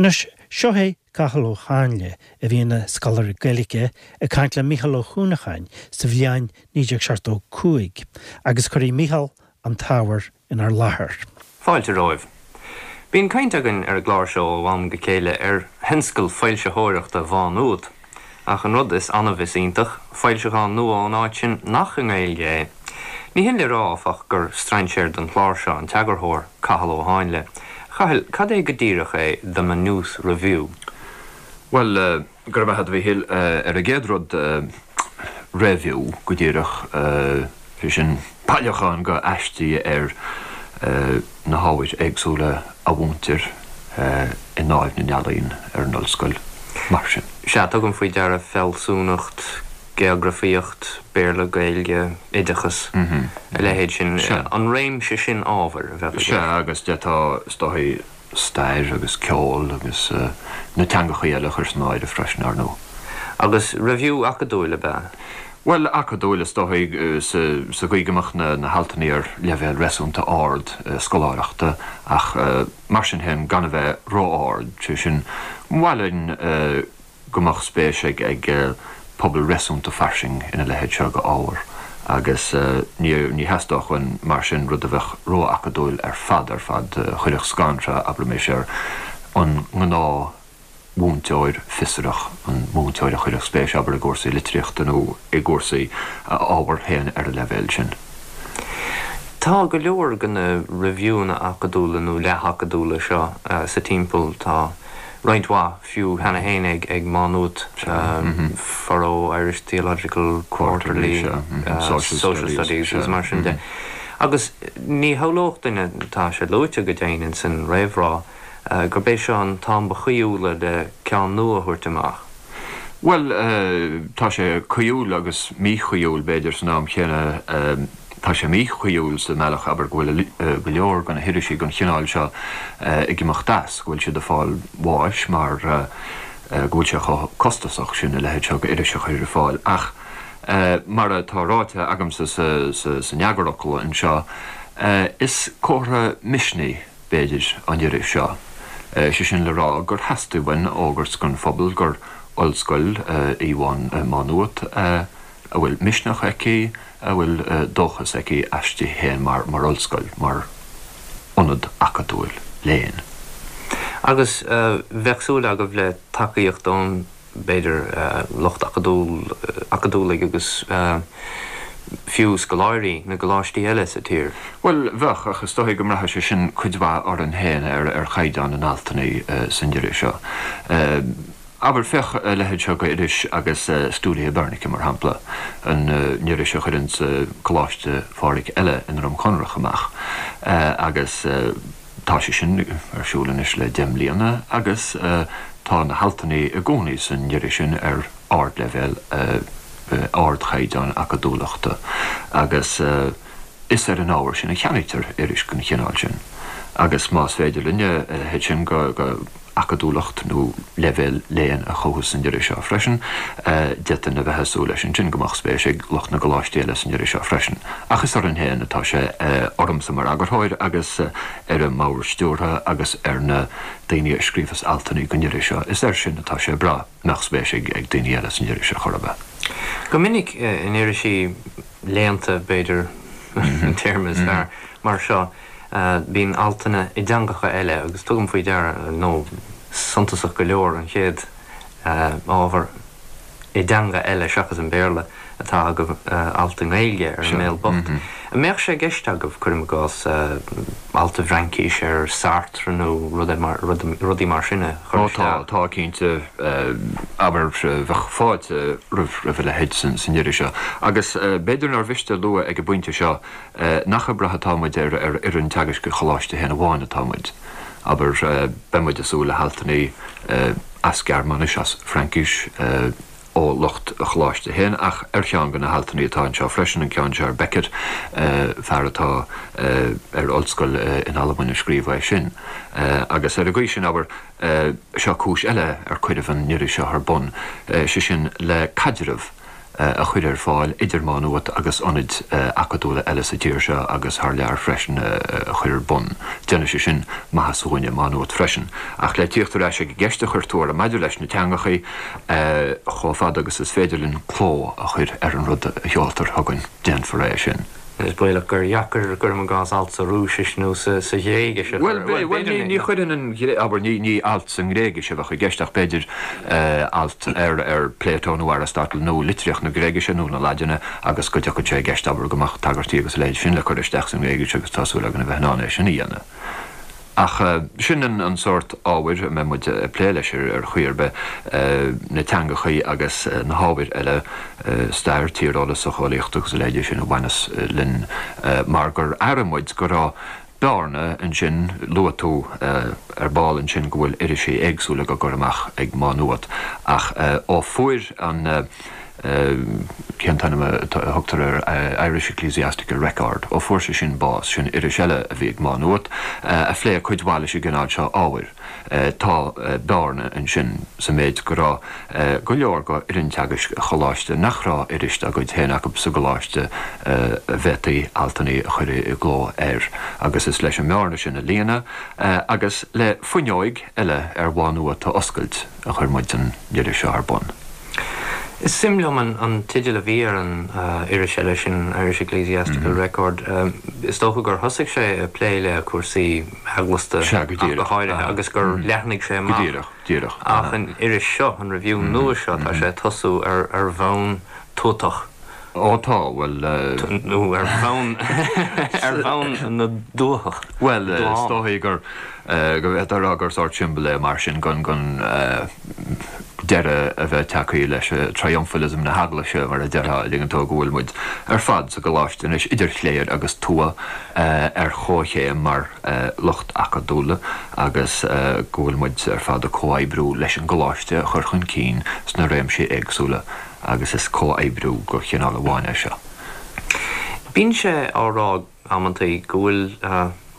Anois, seo é Cathal Ó Háinle, a bhí ina scoláire Gaeilge, ag caint le Mícheál Ó hUanacháin sa bhliain 1975, agus cuirfidh Mícheál an t-ábhar inár láthair. Fáilte romhaibh. Bíonn caint againn ar an gclár seo ó am go chéile ar thionscal foilsitheoireachta Mhá Nuad, ach an rud is annamh is iontach, foilseachán nua ón áit sin nach i nGaeilge é. Ní hin le rá, áfach, gur strainséir don chlár seo an t-eagarthóir, Cathal Ó Háinle. A Chathail, cad é go díreach é The Maynooth Review? Bhuel, go raibh maith agat, a Mhíchíl. Ar an gcéad rud, reiviú, go díreach, sé sin, bailiúchán de aistí ar na hábhair éagsúla a mhúintear i nDáimh na nEalaíon ar an ollscoil, mar sin. Sea, tugaim faoi deara fealsúnacht, geografaíocht, Béarla, Gaeilge, oideachas, a leithéid sin, an réimse sin ábhair a bheadh i gceist. Sea, agus d'fhéadfá, is dóigh, stair agus ceol agus na teangachaí eile a chur san áireamh freisin, ar ndóigh. Agus reiviú acadúil ab ea? Bhuel, acadúil is dóigh, sa gcaoi go mbeadh na haltanna ar leibhéal réasúnta ard scoláireachta ach mar sin féin gan a bheith ró-ard, sé sin, ba mhaith linn go mbeadh spéis ag pobal réasúnta fairsing ina leithéid seo de ábhar agus ní ní theastódh uainn mar sin rud a bheadh ró-acadúil ar fad ar fad, a chuirfeadh scanradh, abraimis, ar an ngnáthmhúinteoir fiosrach, an múinteoir a chuirfeadh spéis, abair, i gcúrsaí litríochta nó i gcúrsaí a ábhair féin ar an leibhéal sin. Tá go leor de na reiviúnna acadúla nó leath-acadúla seo sa timpeall. Tá roinnt mhaith fiú cheana féin ag Má Nuat, Furrow, Irish Theological Quarterly, Social Studies agus mar sin de. Agus ní shamhlódh duine, tá sé luaite go deimhin ins an réamhrá, gurb é seo an t-am ba chaoithiúla le ceann nua a thabhairt amach. Bhuel, tá sé caoithiúil agus míchaoithiúil, b'fhéidir, san am chéanna. Tá sé míchaoithiúil sa mbealach, abair, go bhfuil go leor de na hirisí den chineál seo ag imeacht as, go bhfuil siad ag fáil bháis mar go bhfuil sé chomh costasach sin a leithéid seo d'iris a chur ar fáil. Ach mar atá ráite agamsa san eagarfhocal anseo, is comhartha misnigh, b'fhéidir, an iris seo. Sé sin le rá gur theastaigh uainn a fhógairt don phobal gur ollscoil í Má Nuat a bhfuil misneach aici, a bhfuil dóchas aici aisti féin mar ollscoil, mar ionad acadúil léinn. Agus bheadh súil agaibh le tacaíocht ón b'fhéidir, lucht acadúil, acadúlaigh agus fiú scoláirí na gcoláistí eile sa tír. Bhuel, bheadh, ach is dóigh go mbraithfidh sé sin cuid mhaith orainn féin, ar chaighdeán na n-altanna san iris seo. Abair, féach a leithéid seo d'iris agus Studia Hibernica, mar shampla, an iris a chuireanns Coláiste Phádraig eile i nDroim Conrach amach, agus. Tá sé sin ar siúl anois le 10 mbliana agus tá na haltanna i gcónaí san iris sin ar ardleibhéal, ardchaighdeán acadúlachta agus is ar an ábhar sin a cheannaítear iris den chineál sin. Agus más féidir linne a leithéid sin de acadúlacht nó leibhéal léinn a chothú san iris seo freisin. D'fhéadfainn a bheith ag súil leis ansin go mbeadh spéis ag lucht na gcoláistí eile san iris seo freisin. Ach is orainn féin atá sé, ormsa mar eagarthóir agus ar an mbord stiúrtha agus ar na daoine a scríobhas altanna don iris seo, is air sin atá sé ag brath mbeadh spéis ag daoine eile san iris ar chor ar bith. Go minic in irisí léannta, b'fhéidir an téarma is fearr, mar seo, Bíonn altanna i dteangacha eile agus tugaim faoi deara, nó suntasach go leor, an chéad ábhar i dteanga eile seachas an Béarla atá agaibh, alt i nGaeilge ar An Béal Bocht. An mbeadh sé i gceist agaibh, cuirim i gcás, alt i bhFraincis ar Sartre nó rudaí mar sin a chur isteach? Ó tá, tá cinnte. Abair, bheadh fáilte roimh a leithéid san iris seo. Agus b'fhéidir nár mhiste a lua ag an bpointe seo, Nach ag brath atá muid ar fhoireann teagaisc an choláiste féin amháin atá muid. Abair, beidh muid ag súil le haltanna as Gearmáinis, as Fraincis, ó lucht an choláiste féin, ach ar cheann de na haltanna atá anseo freisin, an ceann seo ar Beckett, fear atá ar ollscoil in Albain a scríobh é sin. Agus ar an gcaoi sin, abair, seo cúis eile ar cuireadh an iris seo ar bun, sé sin le caidreamh. a chur ar fáil idir Má Nuat agus ionaid acadúla eile sa tír seo agus thar lear freisin a chur ar bun. Déanfaidh sé sin maitheas dhúinne i Má Nuat freisin. Ach le tíocht ar ais ag an gceist a chuir tú orm maidir leis na teangachaí, chomh fada agus is féidir linn cló a chur ar an rud a sheoltar chugainn, déanfar é sin. Is baolach gur dheacair, cuirim i gcás, alt sa Rúisis nó sa Ghréigis a chur. Bhuel, bhuel, ní chuirfinn an, abair, ní alt sa nGréigis a bheadh i gceist ach b'fhéidir alt ar, ar Plato nó Aristotle nó litríocht na Gréigise nó na Laidine agus go dtiocfadh sé i gceist, abair, go mbeadh tagairtí agus a leithéid sin le cur isteach sa nGréigis agus tá súil againn a bheith in ann é sin a dhéanamh. Ach sin an sórt ábhair a mbeidh muid ag plé leis ar chaoi ar bith, na teangachaí agus na hábhair eile, stair, tíreolas, socheolaíocht agus a leithéidí sin a bhaineas linn, mar gur airigh muid go raibh bearna ansin, luaigh tú ar ball ansin go bhfuil irisí éagsúla á gcur amach ag Má Nuat, ach ó fuair an. cén t-ainm a thugtar air, Irish Ecclesiastical Record, ó fuair sé sin bás, sin iris eile a bhí ag Má Nuat, a phléigh cuid mhaith leis an gcineál seo ábhair. Tá bearna ansin sa méid go raibh go leor go fhoireann teagaisc an choláiste nach raibh iris dá gcuid féin acu sa gcoláiste a bhféadfaí altanna a chur i gcló air agus is leis an mbearna sin a líonadh agus le fuinneoig eile ar Mhá Nuat a oscailt a chuir muid an iris seo ar bun. Is suim liom an teideal a bhí ar an iris eile sin, Irish Ecclesiastical Record. Is dócha gur thosaigh sé ag plé le cúrsaí eaglasta ach go háirithe agus gur leathnaigh sé amach. Go díreach, díreach. Ach an iris seo, an Review nua seo, tá sé ag tosú ar bhonn tuatach. Ó tá, bhuel. Nó ar bhonn, ar bhonn na dtuathach. Bhuel, is dóigh gur, go bhféadfá a rá gur sórt siombail é mar sin gon, gon deireadh a bheith tagtha leis triumphalism na hEaglaise, mar a déarfá, an dtuigeann tú, go bhfuil muid ar fad sa gcoláiste anois, idir chléir agus tuath, ar chomhchéim mar lucht acadúla agus go bhfuil muid ar fad ag comhoibriú leis an gcoláiste a chur chun cinn sna réimsí éagsúla. agus is comhoibriú de chineál amháin é seo. Bíonn sé á rá amantaí go bhfuil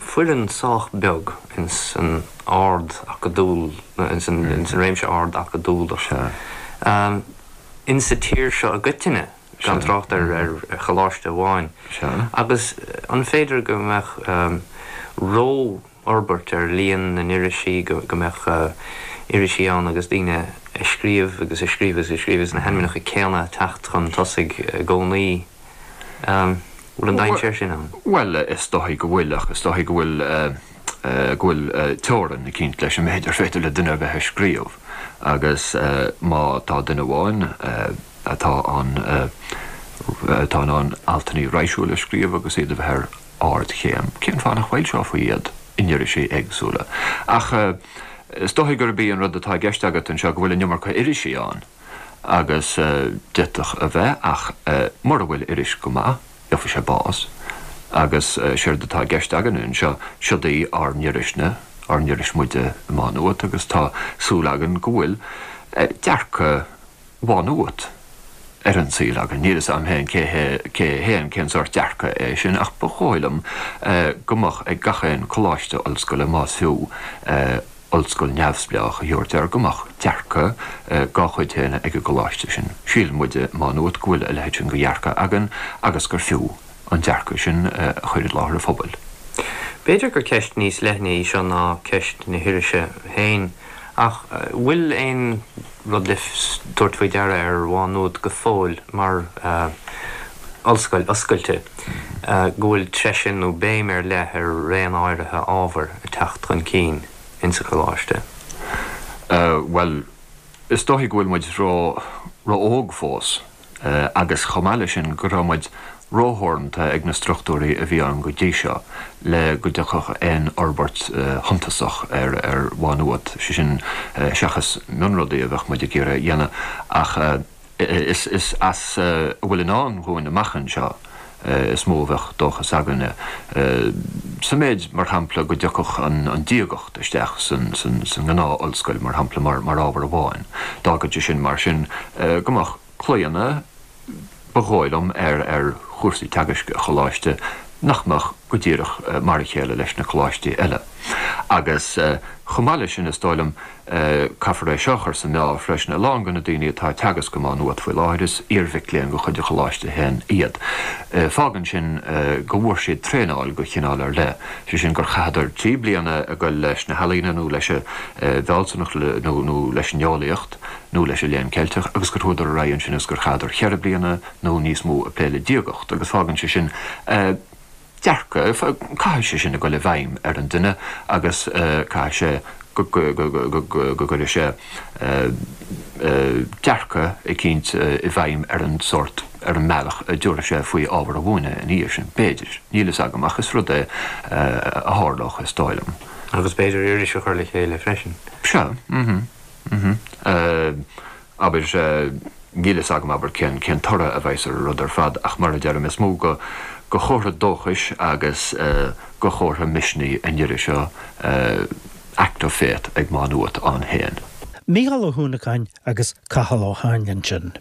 foireann sách beag ins an ard acadúil, ins an réimse ard acadúlach insa tír seo i gcoitinne, gan trácht ar choláiste amháin. Agus an féidir go mbeadh ró fhorbairt ar líon na n-irisí, go mbeadh irisí ann agus daoine ag scríobh agus ag scríobh agus ag scríobh agus na hainmneacha céanna ag teacht chun tosaigh i gcónaí. An bhfuil an dainséar sin ann? Bhuel, is dóigh go bhfuil, ach is dóigh go bhfuil, go bhfuil teorainn eicínt leis an méid ar féidir le duine ar bith a scríobh agus má tá duine amháin atá an, atá in ann altanna raidhsiúla a scríobh agus iad a bheith ar ardchéim, cén fáth nach bhfoilseofaí iad in irisí éagsúla? Ach is dóigh gurb í an rud atá i gceist agat anseo go bhfuil an iomarca irisí ann, agus d'fhéadfadh a bheith, ach mura bhfuil iris go maith, gheobhaidh sé bás. Agus séard atá i gceist againne anseo, siod í ár n-irisne, ár n-iris muide i Má Nuat, agus tá súil againn go bhfuil dearcadh Mhá Nuat ar an saol againn. Níl fhios a'm féin cé hé, cé hé an, cén sórt dearcadh é sin ach ba dhóigh liom go mbeadh ag gach aon coláiste ollscoile, más fiú ollscoil neamhspleách a thabhairt air, go mbeadh dearcadh dá chuid féin ag an gcoláiste sin. Síleann muide i Má Nuat go bhfuil a leithéid sin de dhearcadh againn agus gur fiú an dearcadh sin a chur i láthair an phobail. B'fhéidir gur ceist níos leithne í seo ná ceist na hirise féin ach bhfuil aon rud le tabhairt faoi deara ar Mhá Nuad go fóill mar ollscoil oscailte, go bhfuil treise nó béim ar leith ar raon áirithe ábhair ag teacht chun cinn insa choláiste? Bhuel, is dóichí go bhfuil muid ró-óg fós. agus chomh maith leis sin go raibh muid rótheoranta ag na struchtúirí a bhí ann go dtí seo le go dtiocfadh aon fhorbairt shuntasach ar Mhá Nuat, sé sin seachas mionrudaí a bheadh muid ag iarraidh a dhéanamh ach is as a bhfuil i ndán dhúinn amach anseo is mó a bheadh dóchas againne. Sa méid, mar shampla, go dtiocfadh an diagacht isteach san ngnáth-ollscoil, mar shampla, mar ábhar amháin. D'fhágfadh sé sin, mar sin, go mbeadh claonadh, ba dhóigh liom, ar chúrsaí teagaisc an choláiste nach mbeadh go díreach mar a chéile leis na coláistí eile. Agus. Chomh maith leis sin, is dóigh liom, caithfear é seo a chur sa mheá freisin, a lán de na daoine atá ag teagasc i Má Nuat faoi láthair, is iar-mhic léinn de chuid an Choláiste féin iad. Fágann sin go bhfuair siad traenáil de chineál ar leith, sé sin gur chaitheadar 3 bliana ag goil leis na healaíona nó leis an bhfealsúnacht nó leis an eolaíocht nó leis an Léann Ceilteach agus gur chuadar ar aghaidh ansin agus gur chaitheadar cheithre bliana nó níos mó ag plé le diagacht agus fágann sé sin dearcadh, caithfidh sé sin a goil i bhfeidhm ar an duine agus caithfidh sé go gcuirfidh sé dearcadh eicínt i bhfeidhm ar an sórt, ar an mbealach a dtabharfaidh sé faoi ábhar a mhúineadh ina dhiaidh sin, b'fhéidir, níl fhios agam ach is rud é a tharlódh is dóigh liom. Agus b'fhéidir iris a chur le chéile freisin. Sea, mhm, mhm. Abair, níl fhios agam, abair, cén, cén toradh a bheas ar an rud ar fad ach mar a deirim, is mó go, go chomhartha dóchais agus go chomhartha misnigh an iris seo Act of Faith ag Má Nuat ann féin. Mícheál Ó hUanacháin agus Cathal Ó hÁinle ansin.